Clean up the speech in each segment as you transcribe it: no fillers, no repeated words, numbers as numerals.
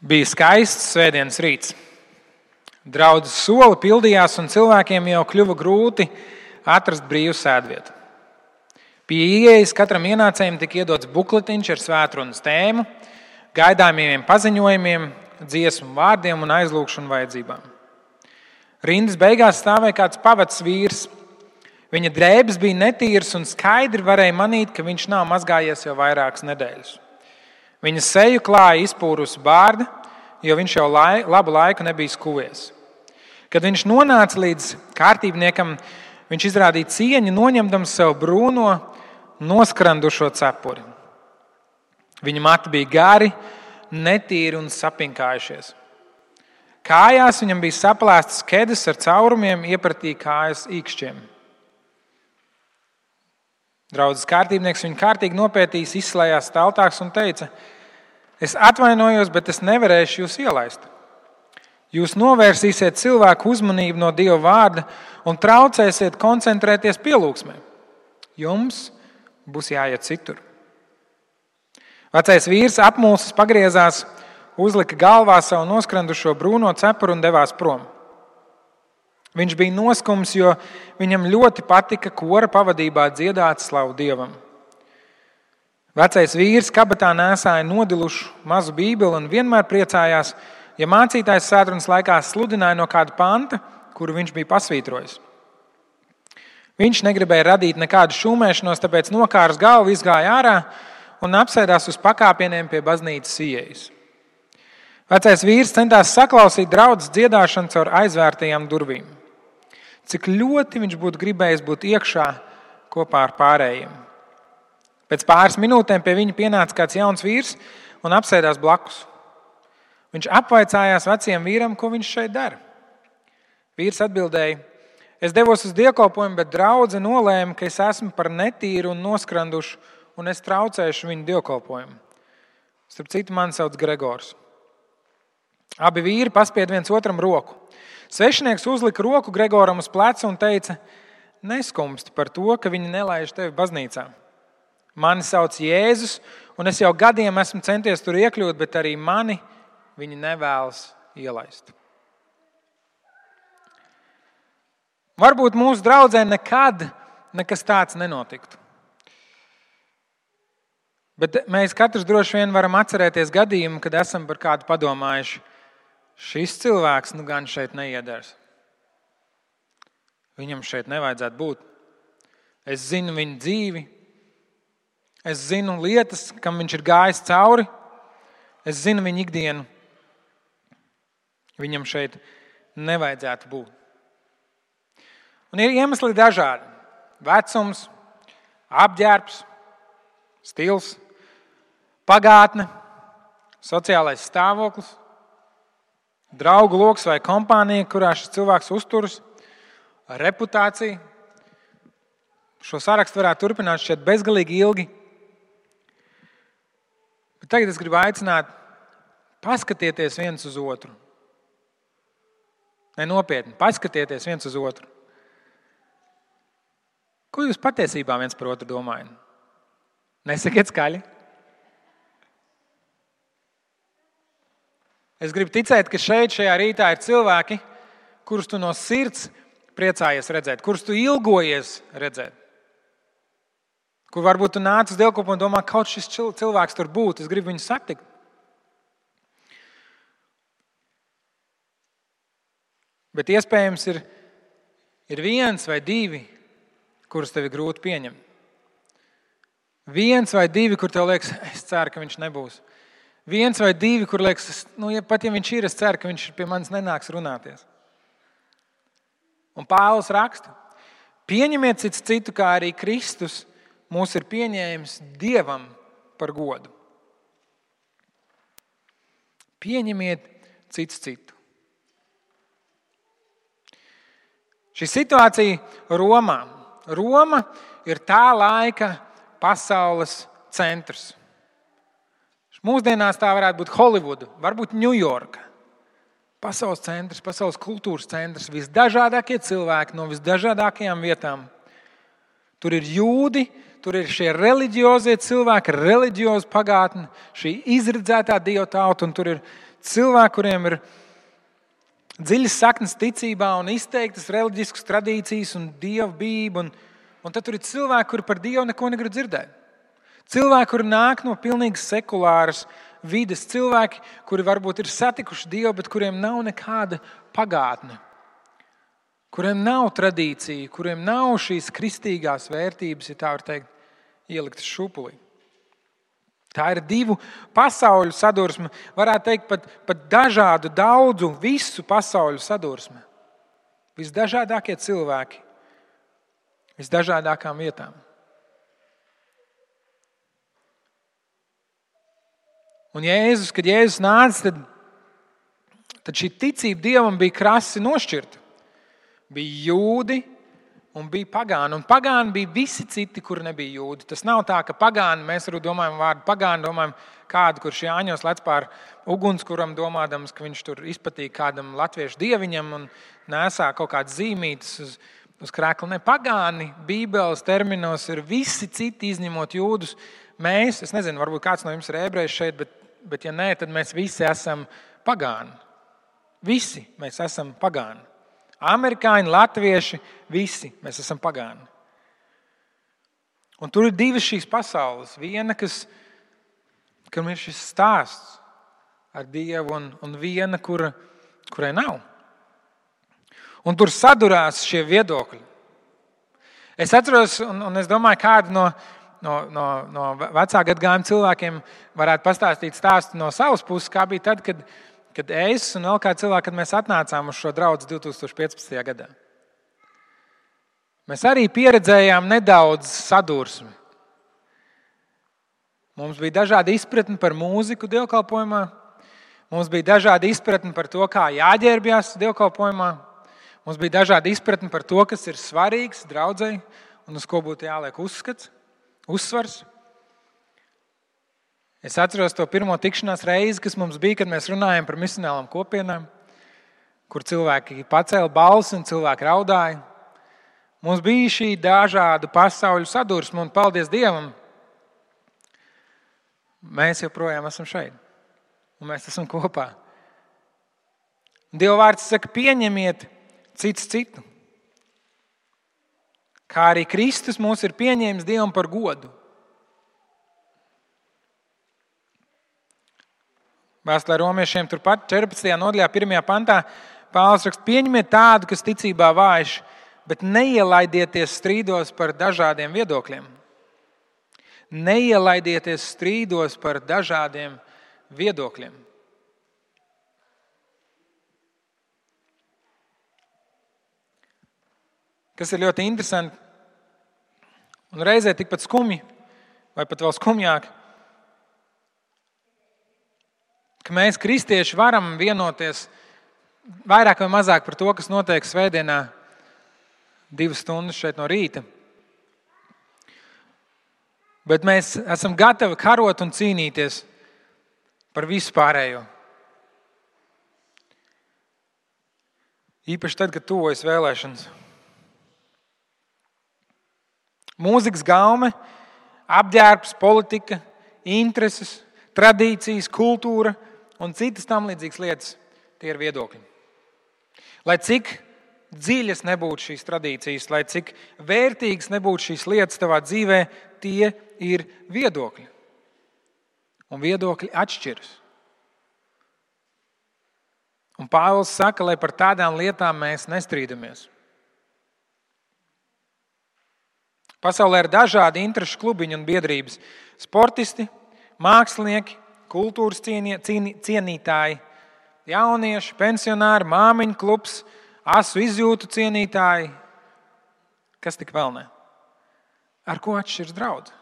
Bija skaists svētdienas rīts. Draudzes soli pildījās, un cilvēkiem jau kļuva grūti atrast brīvu sēdvietu. Pie ieejas katram ienācējam tika iedots bukletiņš ar svētrunas tēmu, gaidāmiem paziņojumiem, dziesmu vārdiem un aizlūgšanu vajadzībām. Rindas beigās stāvēja kāds pavads vīrs. Viņa drēbes bija netīras un skaidri varēja manīt, ka viņš nav mazgājies jau vairākas nedēļas. Viņa seju klāja izpūrusi bārda, jo viņš jau labu laiku nebija skuvies. Kad viņš nonāca līdz kārtībniekam, viņš izrādīja cieņu, noņemdams sev brūno, noskrandušo cepuri. Viņa mati bija gari, netīri un sapinkājušies. Kājās viņam bija saplēstas kedes ar caurumiem, iepratīja kājas īkšķiem. Draudzes kārtībnieks viņu kārtīgi nopētījis, izslējās staltāks un teica: es atvainojos, bet es nevarēšu jūs ielaist. Jūs novērsīsiet cilvēku uzmanību no Dieva vārda un traucēsiet koncentrēties pielūgsmē. Jums būs jāiet citur. Vecais vīrs apmulsis pagriezās, uzlika galvā savu noskrandušo brūno cepuru un devās prom. Viņš bija noskums, jo viņam ļoti patika kora pavadībā dziedāt slavu Dievam. Vecais vīrs kabatā nēsāja nodilušu mazu bībeli un vienmēr priecājās, ja mācītājs svētdienas laikā sludināja no kāda panta, kuru viņš bija pasvītrojis. Viņš negribēja radīt nekādu šūmēšanos, tāpēc nokārs galvu, izgāja ārā un apsēdās uz pakāpieniem pie baznīcas ieejas. Vecais vīrs centās saklausīt draudzes dziedāšanu caur aizvērtajām durvīm. Cik ļoti viņš būtu gribējis būt iekšā kopā ar pārējiem. Pēc pāris minūtēm pie viņa pienāca kāds jauns vīrs un apsēdās blakus. Viņš apvaicājās vecajam vīram, ko viņš šeit dara. Vīrs atbildēja: es devos uz dievkalpojumu, bet draudze nolēma, ka es esmu par netīru un noskrandušu, un es traucēšu viņu dievkalpojumu. Starp citu, mani sauc Gregors. Abi vīri paspied viens otram roku. Svešinieks uzlika roku Gregoram uz pleca un teica: neskumsti par to, ka viņi nelaiž tevi baznīcā. Mani sauc Jēzus, un es jau gadiem esmu centies tur iekļūt, bet arī mani viņi nevēlas ielaist. Varbūt mūsu draudzē nekad nekas tāds nenotiktu. Bet mēs katrs droši vien varam atcerēties gadījumu, kad esam par kādu padomājuši: šis cilvēks nu gan šeit neiedars. Viņam šeit nevajadzētu būt. Es zinu viņu dzīvi. Es zinu lietas, kam viņš ir gājis cauri. Es zinu viņu ikdienu. Viņam šeit nevajadzētu būt. Un ir iemesli dažādi. Vecums, apģērbs, stils, pagātne, sociālais stāvoklis, draugu loks vai kompānija, kurā šis cilvēks uzturas, reputācija. Šo sarakstu varētu turpināt šķiet bezgalīgi ilgi. Bet tagad es gribu aicināt paskatieties viens uz otru. Nopietni, paskatieties viens uz otru. Ko jūs patiesībā viens par otru domājat? Nesakiet skaļi. Es gribu ticēt, ka šajā rītā ir cilvēki, kurus tu no sirds priecājies redzēt, kurus tu ilgojies redzēt. Kur varbūt tu nāc uz dievkalpojumu un domā, kaut šis cilvēks tur būtu, es gribu viņu satikt. Bet iespējams ir viens vai divi, kurus tev ir grūti pieņemt. Viens vai divi, kur tev liekas, es ceru, ka viņš nebūs. Viens vai divi, kur liekas, pat ja viņš ir, es ceru, ka viņš pie manis nenāks runāties. Un Pāvils raksta: pieņemiet cits citu, kā arī Kristus mūs ir pieņēmis Dievam par godu. Pieņemiet cits citu. Šī situācija Romā. Roma ir tā laika pasaules centrs. Mūsdienās tā varētu būt Holivuda, varbūt Ņujorka. Pasaules centrs, pasaules kultūras centrs, visdažādākie cilvēki no visdažādākajām vietām. Tur ir jūdi, tur ir šie reliģiozie cilvēki, reliģioza pagātne, šī izredzētā dieva tauta, un tur ir cilvēki, kuriem ir dziļas saknes ticībā un izteiktas reliģiskas tradīcijas un dievbijība. Un tad tur ir cilvēki, kuri par Dievu neko negrib dzirdēt. Cilvēki, kuri nāk no pilnīgi sekulāras vides. Cilvēki, kuri varbūt ir satikuši Dievu, bet kuriem nav nekāda pagātne. Kuriem nav tradīcija, kuriem nav šīs kristīgās vērtības, ja tā var teikt, ieliktas šupulī. Tā ir divu pasauļu sadursme, varētu teikt pat dažādu, daudzu, visu pasauļu sadursme. Visdažādākie cilvēki, visdažādākām vietām. Un kad Jēzus nāca, tad šī ticība Dievam bija krasi nošķirta. Bija jūdi un bija pagāni. Un pagāni bija visi citi, kuri nebija jūdi. Tas nav tā, ka pagāni, mēs arī domājam vārdu pagāni, domājam kādu, kurš Jāņos lec pār ugunskuram, domādams, ka viņš tur izpatīk kādam latviešu dieviņam un nesā kaut kādas zīmītes uz krēkla. Ne, pagāni Bībeles terminos ir visi citi, izņemot jūdus. Mēs, es nezinu, varbūt kāds no jums ir ebrejs šeit, bet ja nē, tad mēs visi esam pagāni. Visi mēs esam pagāni. Amerikāņi, latvieši, visi mēs esam pagāni. Un tur ir divas šīs pasaules. Viena, kam ir šis stāsts ar Dievu, un viena, kurai nav. Un tur sadurās šie viedokļi. Es atceros, un es domāju, kādu no vecā gadagājuma cilvēkiem varētu pastāstīt stāstu no savas puses, kā bija tad, kad es un vēl kāds cilvēks, kad mēs atnācām uz šo draudzi 2015. gadā. Mēs arī pieredzējām nedaudz sadursmi. Mums bija dažādi izpratni par mūziku dievkalpojumā. Mums bija dažādi izpratni par to, kā jāģērbjas dievkalpojumā. Mums bija dažādi izpratni par to, kas ir svarīgs draudzei un uz ko būtu jāliek uzsvars. Es atceros to pirmo tikšanās reizi, kas mums bija, kad mēs runājām par misionālām kopienām, kur cilvēki pacēla balsi un cilvēki raudāja. Mums bija šī dažādu pasauļu sadursme, un paldies Dievam, mēs joprojām esam šeit, un mēs esam kopā. Dieva vārds saka, pieņemiet cits citu. Kā arī Kristus mūs ir pieņēmis Dievam par godu. Vēstulē romiešiem turpat 14. nodaļā, 1. pantā, Pāvils raksta, pieņemiet tādu, kas ticībā vājš, bet neielaidieties strīdos par dažādiem viedokļiem. Neielaidieties strīdos par dažādiem viedokļiem. Kas ir ļoti interesanti un reizē tikpat skumji, vai pat vēl skumjāk, ka mēs, kristieši, varam vienoties vairāk vai mazāk par to, kas notiek svētdienā 2 stundas šeit no rīta. Bet mēs esam gatavi karot un cīnīties par visu pārējo. Īpaši tad, kad tuvojas vēlēšanas. Mūzikas gaume, apģērbs, politika, intereses, tradīcijas, kultūra un citas tam līdzīgas lietas, tie ir viedokļi. Lai cik dziļas nebūtu šīs tradīcijas, lai cik vērtīgas nebūtu šīs lietas tavā dzīvē, tie ir viedokļi. Un viedokļi atšķiras. Un Pāvils saka, lai par tādām lietām mēs nestrīdamies. Pasaulē ir dažādi interešu klubiņi un biedrības. Sportisti, mākslinieki, kultūras cienītāji, jaunieši, pensionāri, māmiņu klubs, asu izjūtu cienītāji. Kas tik vēl ne? Ar ko atšķiras draudze?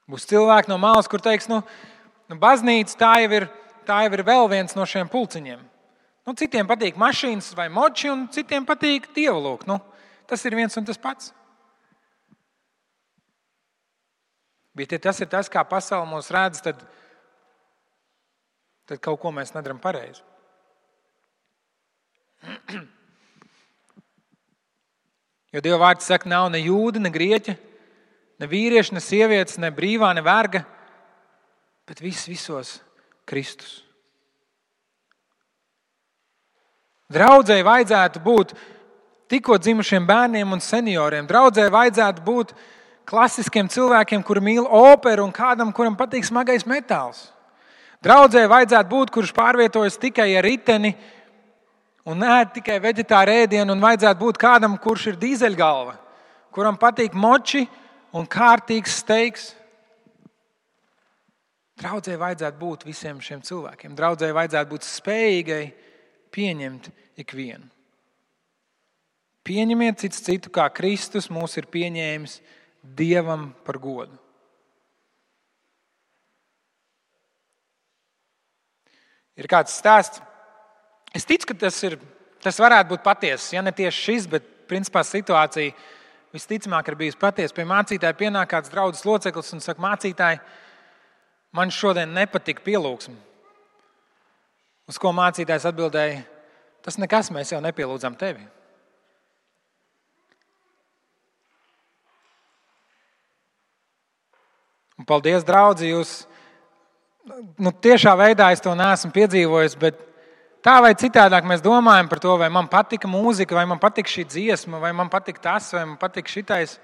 Būs cilvēki no malas, kur teiks, baznīca tā jau ir vēl viens no šiem pulciņiem. Citiem patīk mašīnas vai moči, un citiem patīk dievalūk. Tas ir viens un tas pats. Bet ja tas ir tas, kā pasaule mūs redz, tad kaut ko mēs nedaram pareizi. Jo Dieva vārds saka, nav ne jūda, ne grieķa, ne vīrieša, ne sievietes, ne brīvā, ne verga, bet visos Kristus. Draudzei vajadzētu būt tikko dzimušiem bērniem un senioriem. Draudzei vajadzētu būt klasiskiem cilvēkiem, kuri mīl operu, un kādam, kuram patīk smagais metāls. Draudzei vajadzētu būt, kurš pārvietojas tikai ar riteni un ēd tikai veģetāru ēdienu, un vajadzētu būt kādam, kurš ir dīzeļgalva, kuram patīk moči un kārtīgs steiks. Draudzei vajadzētu būt visiem šiem cilvēkiem. Draudzei vajadzētu būt spējīgai pieņemt ikvienu. Pieņemiet cits citu, kā Kristus mūs ir pieņēmis Dievam par godu. Ir kāds stāsts. Es ticu, ka tas varētu būt patiesas. Ja ne tieši šis, bet principā situācija visticamāk ir bijusi patiesa. Pie mācītāja pienāk kāds draudzes loceklis un saka: mācītāji, man šodien nepatika pielūgsme. Uz ko mācītājs atbildēja: tas nekas, mēs jau nepielūdzam tevi. Un paldies, draudzi, jūs tiešā veidā es to neesmu piedzīvojis, bet tā vai citādāk mēs domājam par to, vai man patika mūzika, vai man patika šī dziesma, vai man patika tas, vai man patika šitais.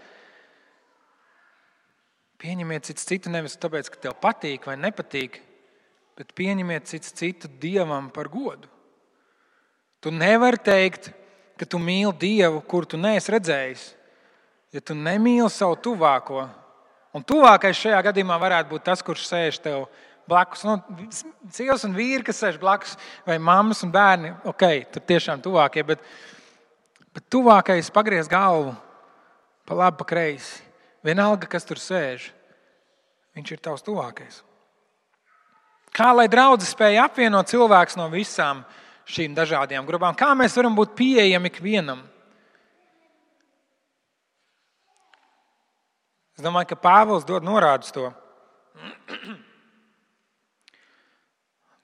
Pieņemiet cits citu nevis tāpēc, ka tev patīk vai nepatīk, bet pieņemiet cits citu Dievam par godu. Tu nevari teikt, ka tu mīli Dievu, kuru tu neesi redzējis, ja tu nemīli savu tuvāko. Un tuvākais šajā gadījumā varētu būt tas, kurš sēž tev blakus. Sievas un vīri, kas sēž blakus, vai mammas un bērni, ok, tur tiešām tuvākie, bet tuvākais pagriez galvu pa labi, pa kreisi. Vienalga, kas tur sēž, viņš ir tavs tuvākais. Kā lai draudze spēja apvienot cilvēkus no visām šīm dažādajām grupām? Kā mēs varam būt pieejami ikvienam? Es domāju, ka Pāvils dod norādu uz to.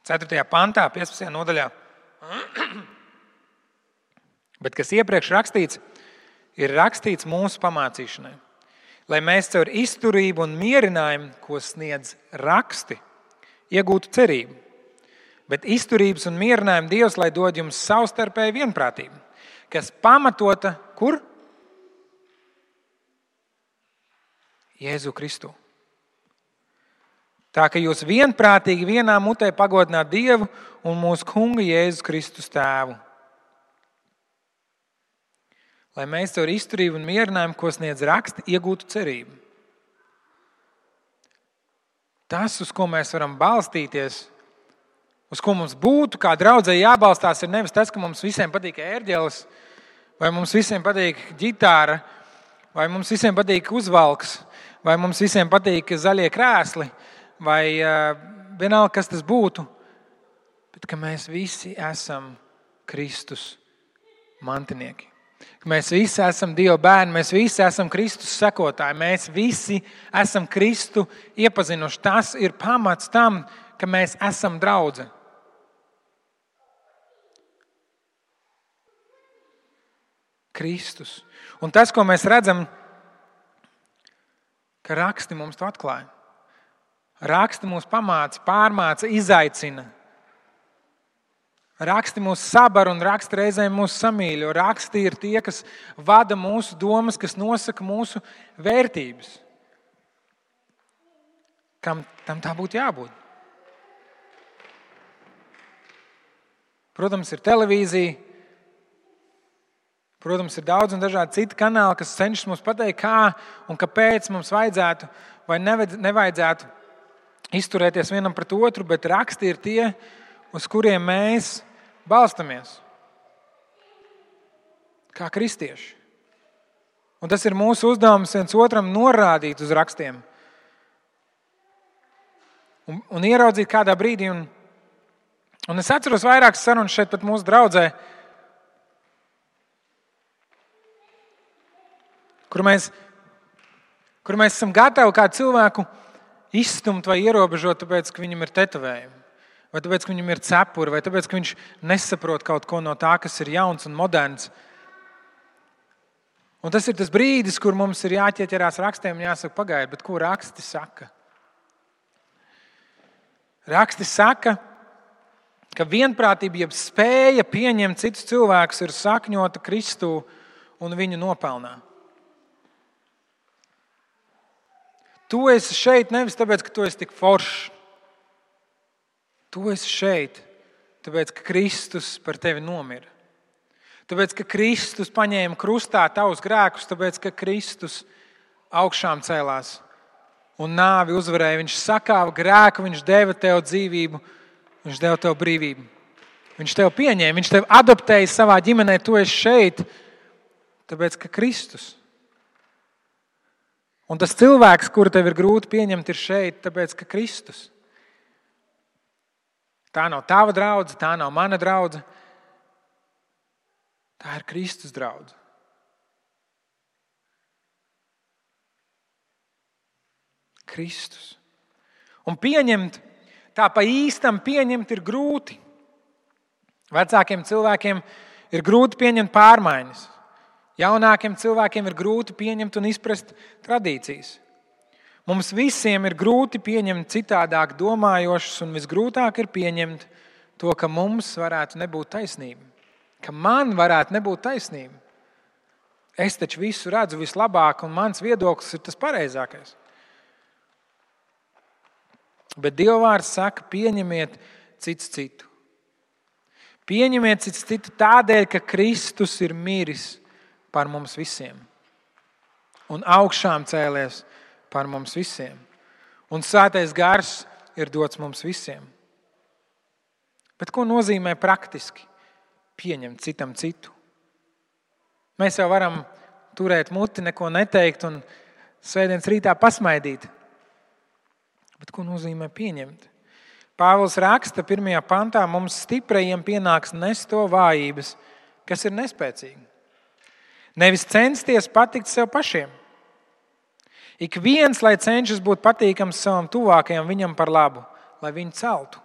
4. pantā, 15. nodaļā. Bet kas iepriekš rakstīts, ir rakstīts mūsu pamācīšanai, lai mēs caur izturību un mierinājumu, ko sniedz raksti, iegūtu cerību. Bet izturības un mierinājumu Dievs, lai dod jums savstarpēju vienprātību, kas pamatota kur? Jēzu Kristu. Tā ka jūs vienprātīgi vienā mutē pagodināt Dievu un mūsu kunga Jēzus Kristus tēvu. Lai mēs caur izturību un mierinājumu, ko sniedz raksti, iegūtu cerību. Tas, uz ko mēs varam balstīties, uz ko mums būtu kā draudzei jābalstās, ir nevis tas, ka mums visiem patīk ērģeles, vai mums visiem patīk ģitāra, vai mums visiem patīk uzvalks, vai mums visiem patīk zaļie krēsli, vai vienalga, kas tas būtu, bet ka mēs visi esam Kristus mantinieki. Ka mēs visi esam Dieva bērni, mēs visi esam Kristus sekotāji, mēs visi esam Kristu iepazinuši. Tas ir pamats tam, ka mēs esam draudze. Kristus. Un tas, ko mēs redzam, ka raksti mums to atklāja. Raksti mūs pamāca, pārmāca, izaicina. Raksti mūs sabar un raksti reizēm mūs samīļo. Raksti ir tie, kas vada mūsu domas, kas nosaka mūsu vērtības. Kam tam tā būtu jābūt? Protams, ir televīzija. Protams, ir daudz un dažādi citi kanāli, kas cenšas mums pateikt, kā un kāpēc mums vajadzētu vai nevajadzētu izturēties vienam pret otru, bet raksti ir tie, uz kuriem mēs balstamies. Kā kristieši. Un tas ir mūsu uzdevums viens otram norādīt uz rakstiem. Un ieraudzīt kādā brīdī. Un es atceros vairākas sarunas šeit pat mūsu draudzē, kur mēs esam gatavi kādu cilvēku izstumt vai ierobežot, tāpēc, ka viņam ir tetovējumi, vai tāpēc, ka viņam ir cepuri, vai tāpēc, ka viņš nesaprot kaut ko no tā, kas ir jauns un moderns. Un tas ir tas brīdis, kur mums ir jāķieķerās rakstiem un jāsaka, pagaidi, bet ko raksti saka? Raksti saka, ka vienprātība, jeb spēja pieņemt citus cilvēkus, ir sakņota Kristū un viņu nopelnā. Tu esi šeit nevis tāpēc, ka tu esi tik foršs. Tu esi šeit tāpēc, ka Kristus par tevi nomira. Tāpēc, ka Kristus paņēma krustā tavus grēkus, tāpēc, ka Kristus augšām cēlās un nāvi uzvarēja. Viņš sakāva grēku, viņš deva tev dzīvību, viņš deva tev brīvību. Viņš tev pieņēma, viņš tev adoptēja savā ģimenē, tu esi šeit, tāpēc, ka Kristus. Un tas cilvēks, kuru tev ir grūti pieņemt, ir šeit, tāpēc, ka Kristus. Tā nav tava draudze, tā nav mana draudze. Tā ir Kristus draudze. Kristus. Un pieņemt, tā pa īstam pieņemt ir grūti. Vecākiem cilvēkiem ir grūti pieņemt pārmaiņas. Jaunākiem cilvēkiem ir grūti pieņemt un izprast tradīcijas. Mums visiem ir grūti pieņemt citādāk domājošus, un visgrūtāk ir pieņemt to, ka mums varētu nebūt taisnība. Ka man varētu nebūt taisnība. Es taču visu redzu vislabāk, un mans viedoklis ir tas pareizākais. Bet Dieva vārds saka, pieņemiet cits citu. Pieņemiet cits citu tādēļ, ka Kristus ir miris par mums visiem. Un augšām cēlies par mums visiem. Un Svētais Gars ir dots mums visiem. Bet ko nozīmē praktiski pieņemt citam citu? Mēs jau varam turēt muti, neko neteikt un svētdienas rītā pasmaidīt. Bet ko nozīmē pieņemt? Pāvils raksta 1. pantā, mums stiprajiem pienāks nest to vājības, kas ir nespēcīgi. Nevis censties patikt sev pašiem. Ik viens, lai cenšas būt patīkams savam tuvākajam, viņam par labu, lai viņu celtu.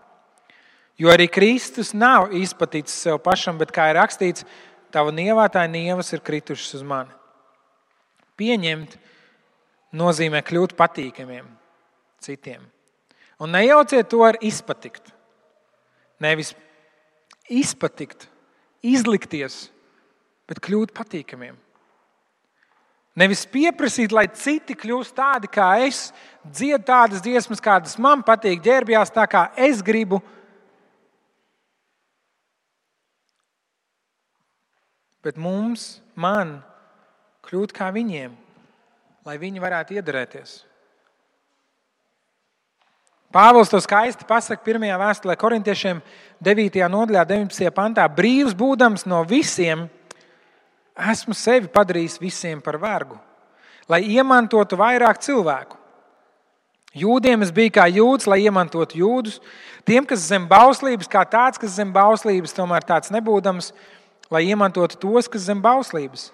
Jo arī Kristus nav izpatīts sev pašam, bet, kā ir rakstīts, tava nievātāja nievas ir kritušas uz mani. Pieņemt nozīmē kļūt patīkamiem citiem. Un nejauciet to ar izpatikt. Nevis izpatikt, izlikties, bet kļūt patīkamiem. Nevis pieprasīt, lai citi kļūst tādi kā es, dzied tādas dziesmas, kādas man patīk, ģērbjās tā, kā es gribu. Bet man kļūt kā viņiem, lai viņi varētu iederēties. Pāvils to skaisti pasaka 1. vēstulē korintiešiem 9. nodaļā 19. pantā. Brīvs būdams no visiem, esmu sevi padarījis visiem par vergu, lai iemantotu vairāk cilvēku. Jūdiem es biju kā jūds, lai iemantotu jūdus. Tiem, kas zem bauslības, kā tāds, kas zem bauslības, tomēr tāds nebūdams, lai iemantotu tos, kas zem bauslības.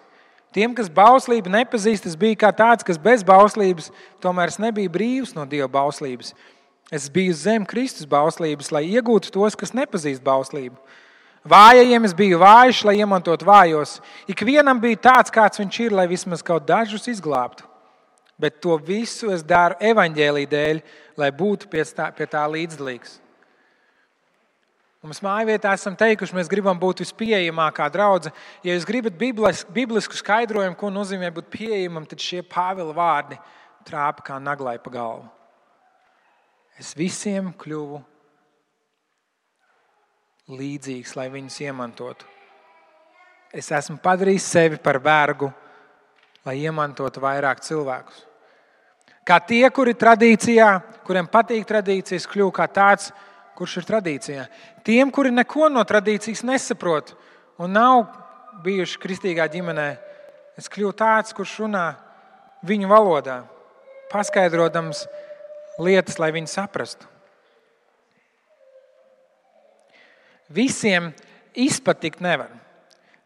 Tiem, kas bauslību nepazīst, es biju kā tāds, kas bez bauslības, tomēr es nebiju brīvs no Dieva bauslības. Es biju zem Kristus bauslības, lai iegūtu tos, kas nepazīst bauslību. Vājajiem es biju vājš, lai iemantotu vājos. Ikvienam bija tāds, kāds viņš ir, lai vismaz kaut dažus izglābtu. Bet to visu es daru evaņģēlija dēļ, lai būtu pie tā līdzdalīgs. Mums mājvietā esam teikuši, mēs gribam būt vispieejamākā draudze. Ja jūs gribat biblisku skaidrojumu, ko nozīmē būt pieejamam, tad šie Pāvila vārdi trāpa kā naglai pa galvu. Es visiem kļuvu līdzīgs, lai viņus iemantotu. Es esmu padarījis sevi par vergu, lai iemantotu vairāk cilvēkus. Kā tie, kuri tradīcijā, kuriem patīk tradīcijas, kļuvu kā tāds, kurš ir tradīcijā. Tiem, kuri neko no tradīcijas nesaprot un nav bijuši kristīgā ģimenē, es kļuvu tāds, kurš runā viņu valodā, paskaidrodams lietas, lai viņi saprastu. Visiem izpatikt nevar.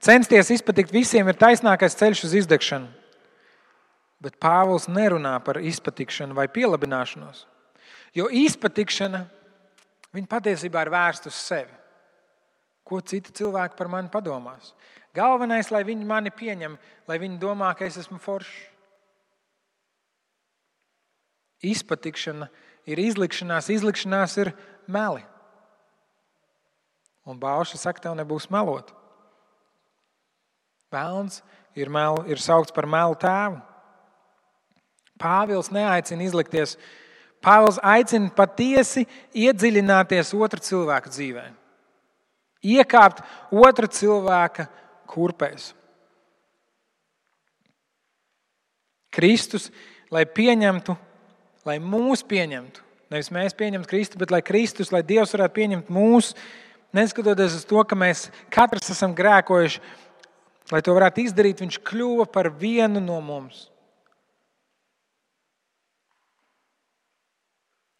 Censties izpatikt visiem ir taisnākais ceļš uz izdegšanu. Bet Pāvils nerunā par izpatikšanu vai pielabināšanos. Jo izpatikšana, viņa patiesībā ir vērsta uz sevi. Ko citi cilvēki par mani padomās? Galvenais, lai viņi mani pieņem, lai viņi domā, ka es esmu foršs. Izpatikšana ir izlikšanās, izlikšanās ir meli. Un bauša saka, tev nebūs melot. Velns ir saukts par melu tēvu. Pāvils neaicina izlikties. Pāvils aicina patiesi iedziļināties otra cilvēka dzīvē. Iekāpt otra cilvēka kurpēs. Kristus, lai pieņemtu, lai mūs pieņemtu, nevis mēs pieņemtu Kristu, bet lai Kristus, lai Dievs varētu pieņemt mūs, neskatoties uz to, ka mēs katrs esam grēkojuši, lai to varētu izdarīt, viņš kļuva par vienu no mums.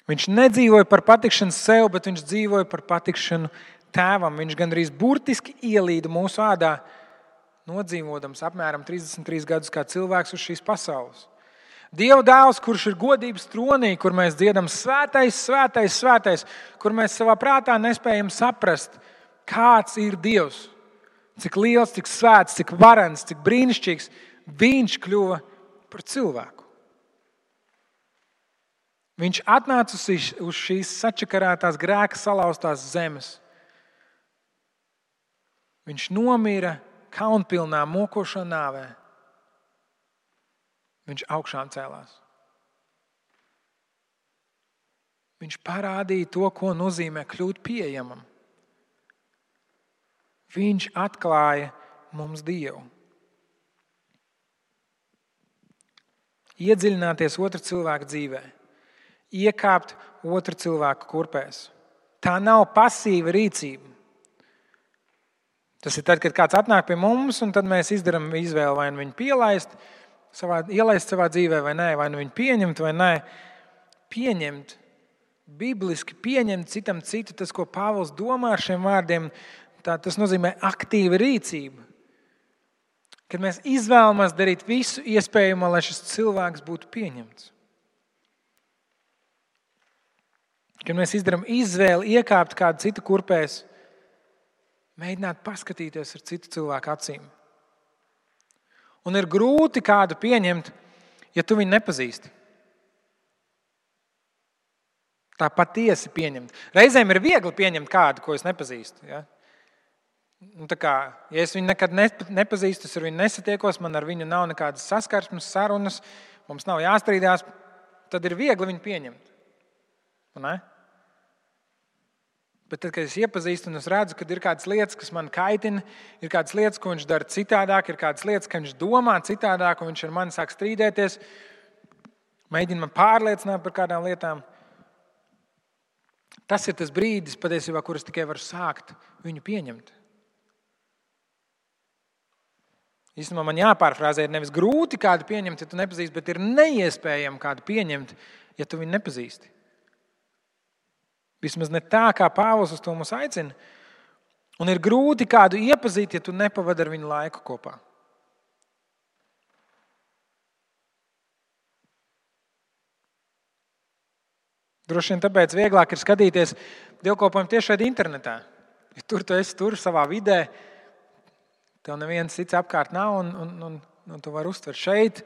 Viņš nedzīvoja par patikšanu sev, bet viņš dzīvoja par patikšanu tēvam. Viņš gandrīz burtiski ielīda mūsu ādā, nodzīvodams apmēram 33 gadus kā cilvēks uz šīs pasaules. Dieva dēls, kurš ir godības tronī, kur mēs dziedam svētais, svētais, svētais, kur mēs savā prātā nespējam saprast, kāds ir Dievs, cik liels, cik svēts, cik varens, cik brīnišķīgs, viņš kļuva par cilvēku. Viņš atnāca uz šīs sačakarētās grēka salauztās zemes. Viņš nomira kaunpilnā mokošā nāvē. Viņš augšām cēlās. Viņš parādīja to, ko nozīmē kļūt pieejamam. Viņš atklāja mums Dievu. Iedziļināties otra cilvēka dzīvē. Iekāpt otra cilvēka kurpēs. Tā nav pasīva rīcība. Tas ir tad, kad kāds atnāk pie mums, un tad mēs izdarām izvēli, vai nu viņu ielaist savā dzīvē, vai nē, vai nu viņu pieņemt, vai nē. Pieņemt, bibliski pieņemt citam citu, tas, ko Pāvils domā ar šiem vārdiem, tas nozīmē aktīva rīcība. Kad mēs izvēlamies darīt visu iespējamo, lai šis cilvēks būtu pieņemts. Kad mēs izdarām izvēli iekāpt kādu citu kurpēs, mēģināt paskatīties ar citu cilvēku acīm. Un ir grūti kādu pieņemt, ja tu viņu nepazīsti. Tā patiesi pieņemt. Reizēm ir viegli pieņemt kādu, ko es nepazīstu. Ja? Ja es viņu nekad nepazīstu, es ar viņu nesatiekos, man ar viņu nav nekādas saskarsmes, sarunas, mums nav jāstrīdās, tad ir viegli viņu pieņemt. Ne? Bet tad, kad es iepazīstu un es redzu, ka ir kādas lietas, kas man kaitina, ir kādas lietas, ko viņš dara citādāk, ir kādas lietas, ka viņš domā citādāk un viņš ar mani sāk strīdēties, mēģina man pārliecināt par kādām lietām. Tas ir tas brīdis, patiesībā, kur es tikai varu sākt viņu pieņemt. Īstenībā man jāpārfrāzē, ir nevis grūti kādu pieņemt, ja tu nepazīsti, bet ir neiespējami kādu pieņemt, ja tu viņu nepazīsti. Vismaz ne tā, kā Pāvils uz to mūs aicina. Un ir grūti kādu iepazīt, ja tu nepavadi ar viņu laiku kopā. Droši vien tāpēc vieglāk ir skatīties dievkalpojumu tieši šeit internetā. Ja tur tu esi tur savā vidē, tev neviens cits apkārt nav un tu vari uztvert šeit.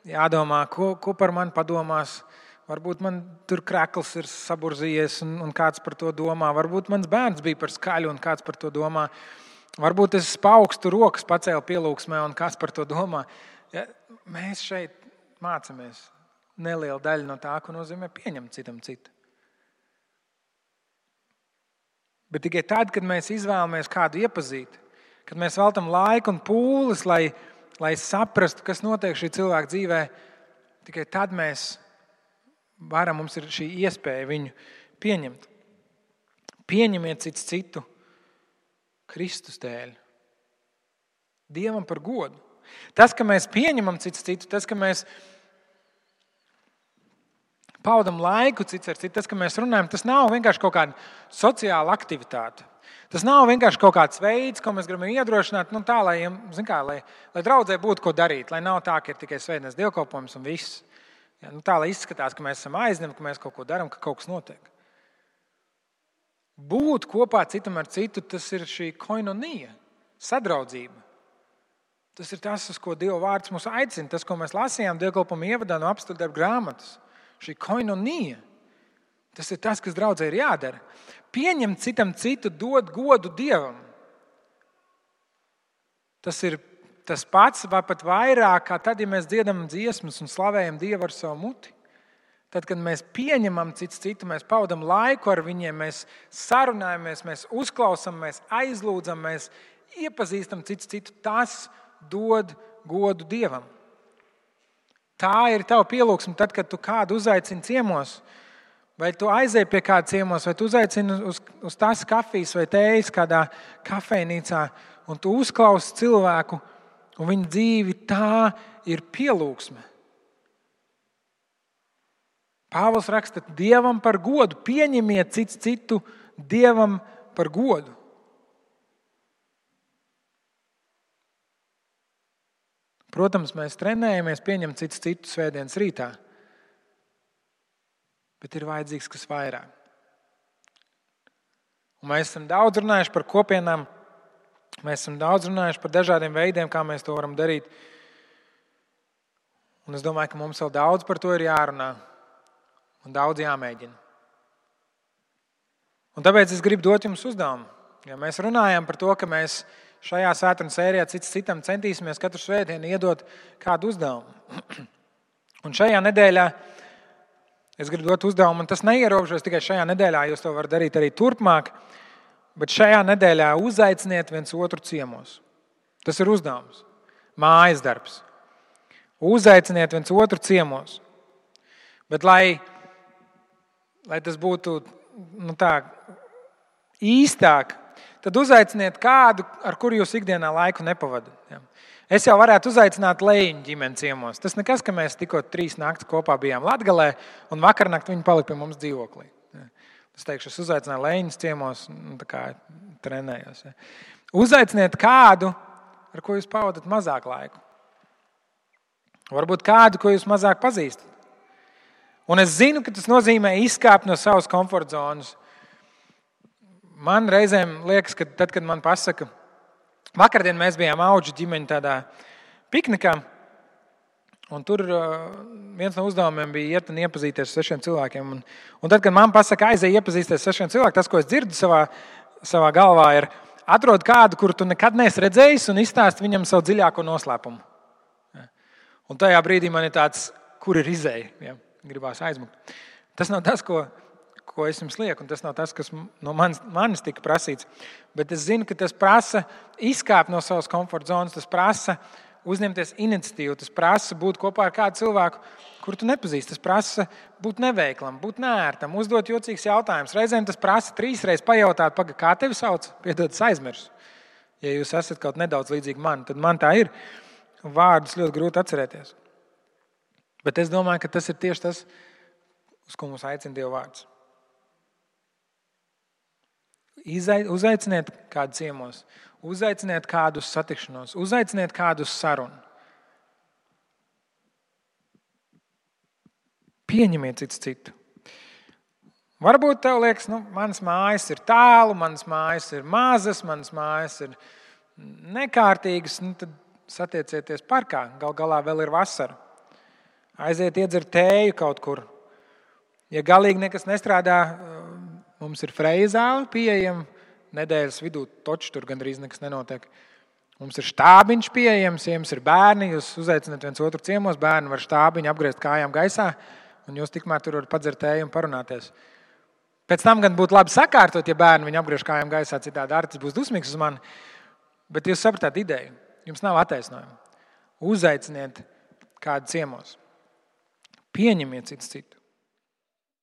Jādomā, ko par mani padomās. Varbūt man tur krekls ir saburzījies un kāds par to domā. Varbūt mans bērns bija par skaļu un kāds par to domā. Varbūt es paaugstu rokas pacēlu pielūgsmē un kāds par to domā. Ja, mēs šeit mācāmies nelielu daļu no tā, ko nozīmē pieņemt citam citu. Bet tikai tad, kad mēs izvēlamies kādu iepazīt, kad mēs veltam laiku un pūles, lai saprastu, kas notiek šī cilvēka dzīvē, tikai tad mums ir šī iespēja viņu pieņemt. Pieņemiet cits citu Kristus dēļ. Dievam par godu. Tas, ka mēs pieņemam cits citu, tas, ka mēs paudam laiku cits ar citu, tas, ka mēs runājam, tas nav vienkārši kaut kāda sociāla aktivitāte. Tas nav vienkārši kaut kāds veids, ko mēs gribam iedrošināt, tā, lai draudzē būtu ko darīt, lai nav tā, ka ir tikai svētdienas dievkalpojums un viss. Ja, tā, lai izskatās, ka mēs esam aizņemti, ka mēs kaut ko darām, ka kaut kas notiek. Būt kopā citam ar citu, tas ir šī koinonija, sadraudzība. Tas ir tas, uz ko Dieva vārds mūs aicina, tas, ko mēs lasījām dievkalpojuma ievadā no apstuļu darbu grāmatas. Šī koinonija. Tas ir tas, kas draudzē ir jādara. Pieņemt citam citu, dot godu Dievam. Tas ir tas pats, vai pat vairāk, kā tad, ja mēs dziedam dziesmas un slavējam Dievu ar savu muti. Tad, kad mēs pieņemam citu, mēs pavadam laiku ar viņiem, mēs sarunājamies, mēs uzklausām, mēs aizlūdzam, mēs iepazīstam citu, tas dod godu Dievam. Tā ir tava pielūgsme tad, kad tu kādu uzaicini ciemos, vai tu aizej pie kāda ciemos, vai tu uzaicini uz tās kafijas vai tējas kādā kafejnīcā, un tu uzklausi cilvēku, un viņa dzīvi, tā ir pielūgsme. Pāvils raksta Dievam par godu, pieņemiet citu Dievam par godu. Protams, mēs trenējamies pieņemt citu svētdienas rītā, bet ir vajadzīgs kas vairāk. Un mēs esam daudz runājuši par kopienām, mēs esam daudz runājuši par dažādiem veidiem, kā mēs to varam darīt. Un es domāju, ka mums vēl daudz par to ir jārunā un daudz jāmēģina. Un tāpēc es gribu dot jums uzdevumu. Ja mēs runājam par to, ka mēs šajā svētdienas sērijā citam centīsimies katru svētdienu iedot kādu uzdevumu. Un šajā nedēļā es gribu dot uzdevumu, un tas neierobežojas tikai šajā nedēļā, jūs to varat darīt arī turpmāk, bet šajā nedēļā uzaiciniet viens otru ciemos. Tas ir uzdevums, mājas darbs. Uzaiciniet viens otru ciemos. Bet lai tas būtu īstāk, tad uzaiciniet kādu, ar kuru jūs ikdienā laiku nepavadat. Es jau varētu uzaicināt Lejiņu ģimeni ciemos. Tas nekas, ka mēs tikko 3 naktis kopā bijām Latgalē, un vakarnakt viņi palika pie mums dzīvoklī. Es teikšu, es uzaicināju Lejiņus ciemos, tā kā trenējos. Uzaiciniet kādu, ar ko jūs pavadat mazāk laiku. Varbūt kādu, ko jūs mazāk pazīstat. Un es zinu, ka tas nozīmē izkāpt no savas komforta zonas. Man reizēm liekas, ka tad, kad man pasaka, vakardien mēs bijām auģu ģimeņu tādā piknikā, un tur viens no uzdevumiem bija iet un iepazīties ar 6 cilvēkiem. Un tad, kad man pasaka, aizej iepazīties ar 6 cilvēkiem, tas, ko es dzirdu savā galvā, ir atrod kādu, kuru tu nekad neesi redzējis, un izstāst viņam savu dziļāko noslēpumu. Un tajā brīdī man ir tāds, kur ir izēja, ja? Gribās aizmukt. Tas nav tas, ko es jums lieku, un tas nav tas, kas no manis tika prasīts. Bet es zinu, ka tas prasa izkāpt no savas komforta zonas, tas prasa uzņemties iniciatīvu, tas prasa būt kopā ar kādu cilvēku, kuru tu nepazīsti. Tas prasa būt neveiklam, būt neērtam, uzdot jocīgs jautājums. Reizēm tas prasa 3 reizes pajautāt, kā tevi sauc, piedod, es aizmirsu. Ja jūs esat kaut nedaudz līdzīgi man, tad man tā ir. Vārdus ļoti grūti atcerēties. Bet es domāju, ka tas ir tieši tas, uz ko mums aicina Dieva vārds. Uzaiciniet kādu ciemos, uzaiciniet kādu uz satikšanos, uzaiciniet kādu uz sarunu. Pieņemiet citu. Varbūt tev liekas, manas mājas ir tālu, manas mājas ir mazas, manas mājas ir nekārtīgas, tad satiecieties parkā, gal galā vēl ir vasara. Aiziet iedzert tēju kaut kur. Ja galīgi nekas nestrādā, mums ir Freja zāle pieejama. Nedēļas vidū toči tur gandrīz nekas nenotiek. Mums ir štābiņš pieejams, ja jums ir bērni, jūs uzaicināt viens otru ciemos, bērni var štābiņu apgriezt kājām gaisā, un jūs tikmēr tur varat padzert tēju un parunāties. Pēc tam gan būtu labi sakārtot, ja bērni viņu apgriež kājām gaisā, citādi Artis būs dusmīgs uz mani. Bet jūs sapratāt ideju. Jums nav attaisnojuma. Uzaiciniet kādu ciemos. Pieņemiet citu.